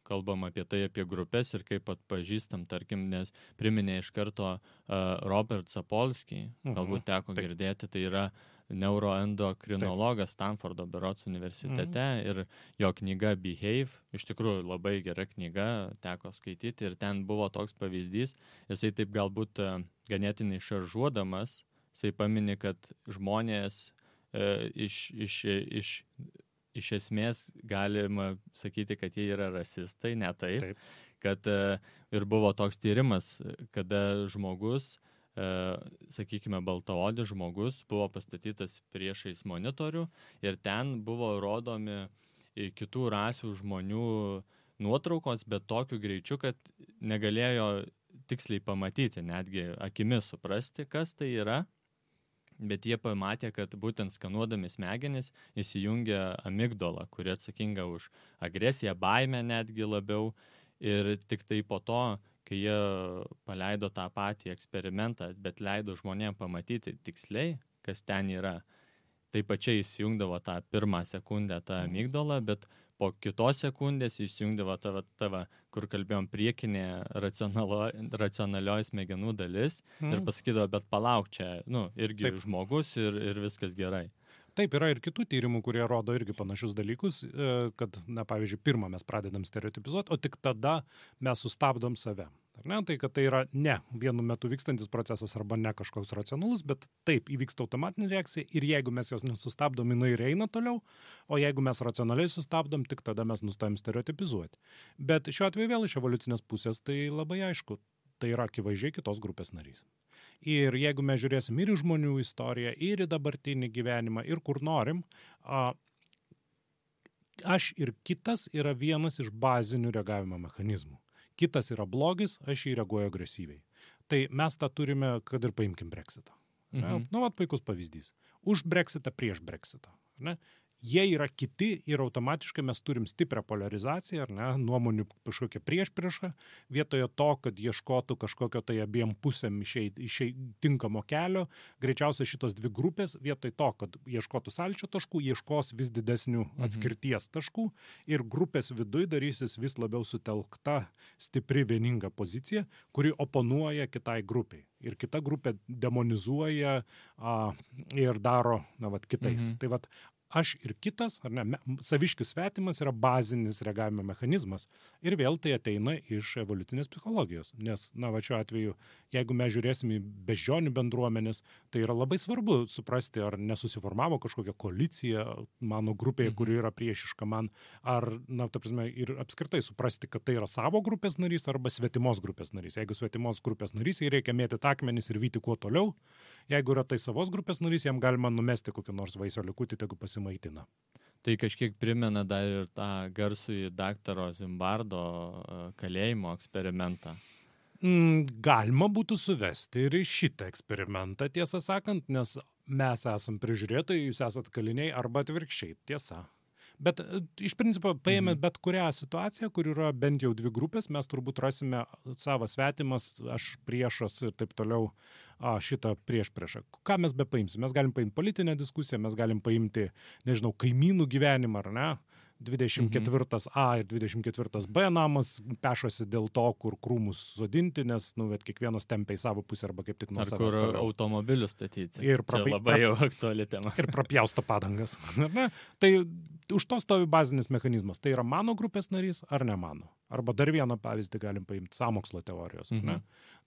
kalbam apie tai, apie grupės ir kaip atpažįstam, tarkim, nes priminė iš karto Robert Sapolsky, galbūt teko girdėti, tai yra neuroendokrinologas Stanfordo berods universitete ir jo knyga Behave, iš tikrųjų labai gera knyga, teko skaityti ir ten buvo toks pavyzdys, jisai taip galbūt ganėtinai šaržuodamas, jisai pamini, kad žmonės iš esmės galima sakyti, kad jie yra rasistai, ne taip. Kad ir buvo toks tyrimas, kada žmogus, sakykime, baltaodis žmogus buvo pastatytas priešais monitorių ir ten buvo rodomi kitų rasių žmonių nuotraukos, bet tokiu greičiu, kad negalėjo tiksliai pamatyti, netgi akimis suprasti, kas tai yra. Bet jie pamatė, kad būtent skanuodami smegenis įsijungia amigdala, kuri atsakinga už agresiją, baimę netgi labiau. Ir tik tai po to, kai jie paleido tą patį eksperimentą, bet leido žmonėms pamatyti tiksliai, kas ten yra, tai pačiai įsijungdavo tą pirmą sekundę tą amigdalą, bet po kitos sekundės įsijungdavo tavo, kur kalbėjom, priekinė racionalioji smegenų dalis ir pasakydavo, bet palauk čia, irgi žmogus ir viskas gerai. Taip, yra ir kitų tyrimų, kurie rodo irgi panašius dalykus, kad, pavyzdžiui, pirmą mes pradedam stereotipizuoti, o tik tada mes sustabdom save. Ar ne? Tai, kad tai yra ne vienu metu vykstantis procesas arba ne kažkoks racionalus, bet taip įvyksta automatinė reakcija ir jeigu mes jos nesustabdom, jinai ir eina toliau, o jeigu mes racionaliai sustabdom, tik tada mes nustojam stereotipizuoti. Bet šiuo atveju vėl iš evoliucinės pusės tai labai aišku, tai yra akivaizdžiai kitos grupės narys. Ir jeigu mes žiūrėsim ir į žmonių istoriją, ir į dabartinį gyvenimą, ir kur norim, aš ir kitas yra vienas iš bazinių reagavimo mechanizmų. Kitas yra blogis, aš jį reaguoju agresyviai. Tai mes tą turime, kad ir paimkim Brexitą. Vat puikus pavyzdys. Už Brexitą, prieš Brexitą. Ne? Jie yra kiti ir automatiškai mes turim stiprią polarizaciją, ar ne, nuomonių kažkokią priešpriešą, vietoje to, kad ieškotų kažkokio tai abiem pusėm išeit tinkamo kelio, greičiausiai šitos dvi grupės, vietoj to, kad ieškotų sąlyčio taškų, ieškos vis didesnių atskirties taškų ir grupės viduj darysis vis labiau sutelkta, stipri, vieninga pozicija, kuri oponuoja kitai grupiai. Ir kita grupė demonizuoja ir daro, kitais. Tai aš ir kitas, ar ne, saviškis svetimas yra bazinis reagavimo mechanizmas. Ir vėl tai ateina iš evoliucinės psichologijos. Nes, šiuo atveju, jeigu mes žiūrėsim į beždžionių bendruomenės, tai yra labai svarbu suprasti, ar nesusiformavo kažkokia koalicija mano grupėje, kuri yra priešiška man, ar, ir apskritai suprasti, kad tai yra savo grupės narys arba svetimos grupės narys. Jeigu svetimos grupės narys, jai reikia mėtyti akmenis ir vyti kuo toliau. Jeigu yra tai savos grupės narys, jam galima numesti kokį nors vaisio likutį, tegu pasimaitina. Tai kažkiek primena dar ir tą garsųjį daktaro Zimbardo kalėjimo eksperimentą. Galima būtų suvesti ir į šitą eksperimentą, tiesą sakant, nes mes esam prižiūrėtojai, jūs esat kaliniai arba atvirkščiai, tiesa. Bet iš principo, paėmė bet kurią situaciją, kur yra bent jau dvi grupės, mes turbūt rasime savas svetimas, aš priešas ir taip toliau šitą priešpriešą. Ką mes bepaimsim? Mes galim paimti politinę diskusiją, mes galim paimti, nežinau, kaimynų gyvenimą, ar ne? 24A ir 24B namas pešosi dėl to, kur krūmus sodinti, nes kiekvienas tempia į savo pusę arba kaip tik nuo savęs toliau. Ar kur automobilius statyti. Ir čia labai jau aktuali tema. Ir prapjausto padangas. Tai už to stovi bazinis mechanizmas. Tai yra mano grupės narys ar ne mano. Arba dar vieną pavyzdį galim paimti sąmokslo teorijos.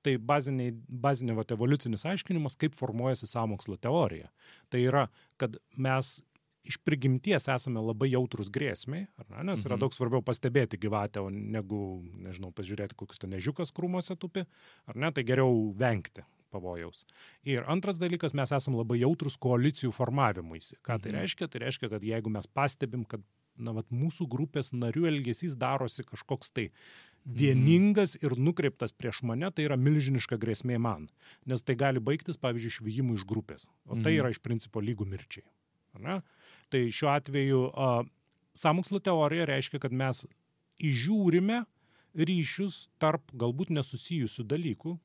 Tai bazinė evoliucinis aiškinimas, kaip formuojasi sąmokslo teorija. Tai yra, kad mes iš prigimties esame labai jautrus grėsmiai, nes yra daug svarbiau pastebėti gyvatę, negu, nežinau, pažiūrėti, kokius ten ežiukas krūmuose tupi, ar ne, tai geriau vengti pavojaus. Ir antras dalykas, mes esame labai jautrus koalicijų formavimuisi. Ką tai reiškia? Tai reiškia, kad jeigu mes pastebim, kad mūsų grupės narių elgesys darosi kažkoks tai vieningas ir nukreiptas prieš mane, tai yra milžiniška grėsmė man. Nes tai gali baigtis, pavyzdžiui, išvijimu iš grupės. O tai yra iš principo lygų mirčiai. Ne? Tai šiuo atveju sąmokslo teorija reiškia, kad mes įžiūrime ryšius tarp galbūt nesusijusių dalykų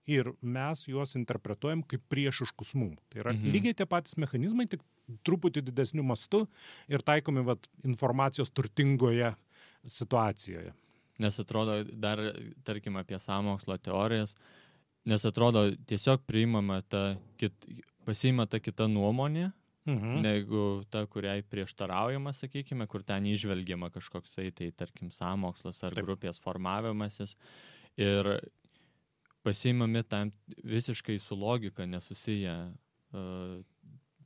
ir mes juos interpretuojam kaip priešiškus mum. Tai yra lygiai tie patys mechanizmai, tik truputį didesniu mastu ir taikomi informacijos turtingoje situacijoje. Nes atrodo, dar, tarkim, apie sąmokslo teorijas, nes atrodo, tiesiog pasiima ta kita nuomonė, negu ta, kuriai prieštaraujama, sakykime, kur ten įžvelgiama kažkoksai, tai tarkim, sąmokslas ar grupės formavimasis. Ir pasiimami tam visiškai su logika nesusiję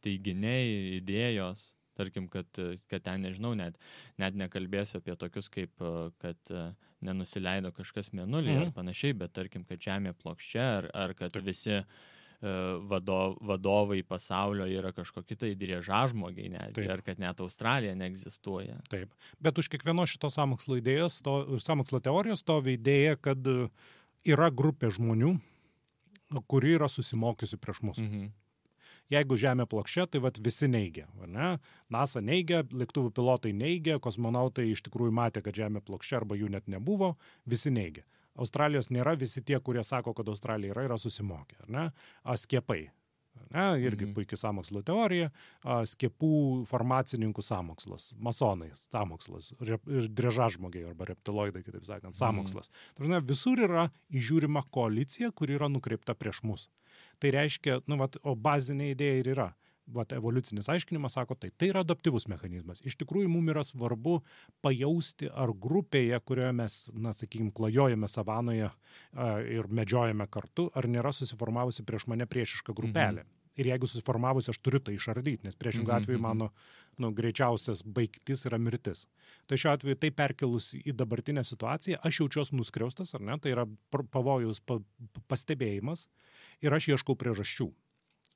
teiginiai, idėjos. Tarkim, kad ten, nežinau, net nekalbėsiu apie tokius kaip, kad nenusileido kažkas mėnulį ar panašiai, bet tarkim, kad Žemė plokščia ar kad visi vadovai pasaulio yra kažkokie tai driežažmogiai netgi, ar kad net Australija neegzistuoja. Taip, bet už kiekvienos šitos sąmokslo idėjos, sąmokslo teorijos stovi idėja, kad yra grupė žmonių, kuri yra susimokiusi prieš mus. Jeigu Žemė plokščia, tai visi neigia. Ne? NASA neigia, lėktuvų pilotai neigia, kosmonautai iš tikrųjų matė, kad Žemė plokščia arba jų net nebuvo, visi neigia. Australijos nėra, visi tie, kurie sako, kad Australija yra Skiepai. Susimokę. Skiepai. Irgi puikiai sąmokslo teorija. Skiepų farmacininkų sąmokslas. Masonai sąmokslas. Driežažmogiai arba reptiloidai, kitaip sakant, sąmokslas. Visur yra įžiūrima koalicija, kuri yra nukreipta prieš mus. Tai reiškia, o bazinė idėja ir yra. evoliucinis aiškinimas sako, tai yra adaptyvus mechanizmas. Iš tikrųjų, mums yra svarbu pajausti, ar grupėje, kurioje mes, sakykime, klajojame savanoje ir medžiojame kartu, ar nėra susiformavusi prieš mane priešiška grupelė. Ir jeigu susiformavusi, aš turiu tai išardyti, nes priešingų atveju mano greičiausias baigtis yra mirtis. Tai šiuo atveju tai perkelus į dabartinę situaciją, aš jaučiuosi nuskriaustas, ar ne? Tai yra pavojaus pastebėjimas ir aš ieškau priežasčių.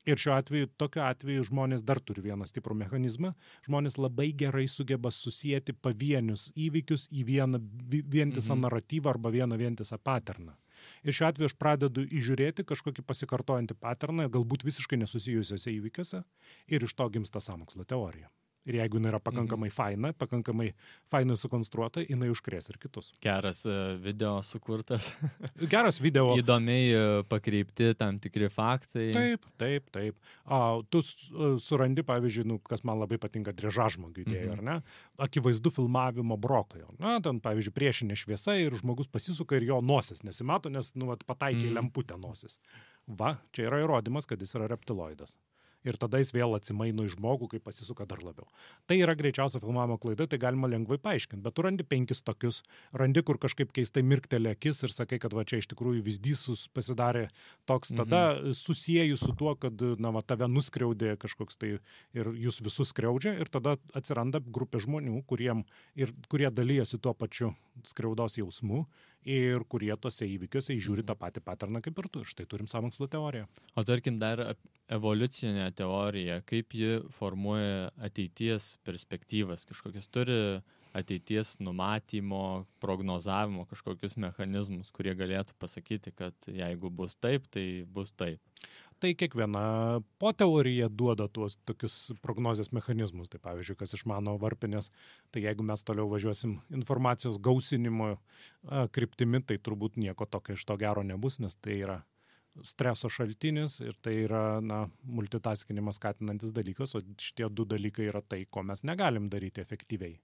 Ir šiuo atveju, tokiu atveju žmonės dar turi vieną stiprų mechanizmą. Žmonės labai gerai sugeba susijęti pavienius įvykius į vieną vientisą naratyvą arba vieną vientisą paterną. Ir šiuo atveju aš pradedu įžiūrėti kažkokį pasikartojantį paterną, galbūt visiškai nesusijusiuose įvykiuose, ir iš to gimsta sąmokslo teorija. Ir jeigu jinai yra pakankamai fainai sukonstruota, jinai užkrės ir kitus. Geras video sukurtas. Geras video. Įdomiai pakreipti tam tikri faktai. Taip. Tu surandi, pavyzdžiui, kas man labai patinka, Driežažmogių idėja, ar ne? Akivaizdu filmavimo brokai. Ten, pavyzdžiui, priešinė šviesa ir žmogus pasisuka ir jo nosis nesimato, nes pataikė lemputę nosis. Čia yra įrodymas, kad jis yra reptiloidas. Ir tada jis vėl atsimaino į žmogų, kai pasisuka dar labiau. Tai yra greičiausia filmavimo klaida, tai galima lengvai paaiškinti, bet tu randi 5 tokius, randi, kur kažkaip keistai mirktelė akis ir sakai, kad čia iš tikrųjų vyzdys pasidarė toks, tada susijęju su tuo, kad tave nuskriaudė kažkoks tai ir jūs visus skriaudžia, ir tada atsiranda grupė žmonių, kurie dalyjasi tuo pačiu skriaudos jausmu ir kurie tose įvykiuose įžiūri tą patį paterną kaip ir tu. Ir štai turim sąmokslo teoriją. O tarkim dar evoliucinė teorija, kaip ji formuoja ateities perspektyvas, kažkokias turi ateities numatymo, prognozavimo kažkokius mechanizmus, kurie galėtų pasakyti, kad jeigu bus taip, tai bus taip. Tai kiekviena poteorija duoda tuos tokius prognozės mechanizmus. Tai pavyzdžiui, kas išmano varpinės, tai jeigu mes toliau važiuosim informacijos gausinimo kryptimi, tai turbūt nieko tokio iš to gero nebus, nes tai yra streso šaltinis ir tai yra multitaskinimas skatinantis dalykas, o šitie 2 dalykai yra tai, ko mes negalim daryti efektyviai.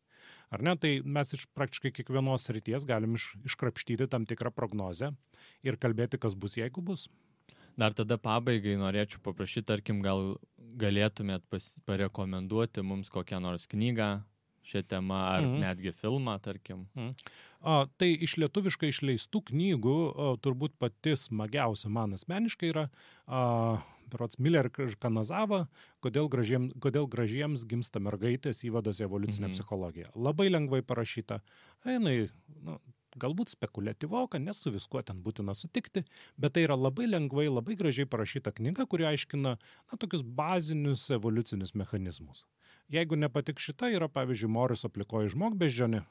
Ar ne? Tai mes iš praktiškai kiekvienos srities galim iškrapštyti tam tikrą prognozę ir kalbėti, kas bus, jeigu bus. Dar tada pabaigai norėčiau paprašyti, tarkim, gal galėtumėt parekomenduoti mums kokią nors knygą šią temą ar netgi filmą, tarkim. Tai iš lietuviškai išleistų knygų turbūt pati smagiausia man asmeniškai yra berods Miller ir Kanazava, kodėl gražiems gimsta mergaitės įvadas į evoliucinę psichologiją. Labai lengvai parašyta. Jinai, galbūt spekuliatyvoka, nes su viskuo ten būtina sutikti, bet tai yra labai lengvai, labai gražiai parašyta knyga, kuri aiškina tokius bazinius evoliucinius mechanizmus. Jeigu nepatik šita, yra, pavyzdžiui, Moriso Plikoji žmogbeždžionė,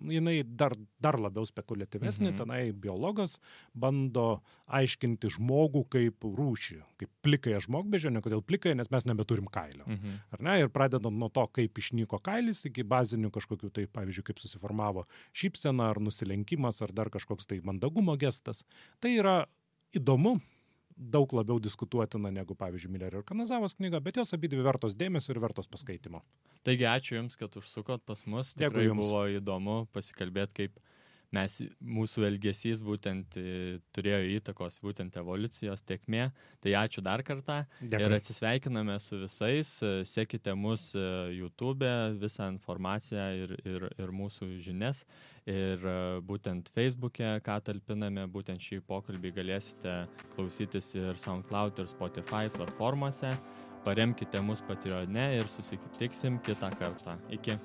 jinai dar labiau spekuliatyvesnė, tenai biologas bando aiškinti žmogų kaip rūšį, kaip plikąją žmogbeždžionę, kodėl plikąją, nes mes nebeturim kailio. Ar ne? Ir pradedant nuo to, kaip išnyko kailis, iki bazinių kažkokių, tai pavyzdžiui, kaip susiformavo šypsena ar nusilenkimas, ar dar kažkoks tai mandagumo gestas. Tai yra įdomu, daug labiau diskutuotina negu, pavyzdžiui, Miller ir Kanazavos knyga, bet jos abidvi vertos dėmesio ir vertos paskaitimo. Taigi, ačiū Jums, kad užsukot pas mus. Tikrai buvo įdomu pasikalbėti, kaip mūsų elgesys būtent turėjo įtakos būtent evoliucijos tėkmė. Tai ačiū dar kartą. Dėkui. Ir atsisveikiname su visais. Sekite mus YouTube, visą informaciją ir mūsų žinias. Ir būtent Facebook'e, ką talpiname, būtent šį pokalbį galėsite klausytis ir SoundCloud ir Spotify platformose. Paremkite mus Patreone ir susitiksim kitą kartą. Iki.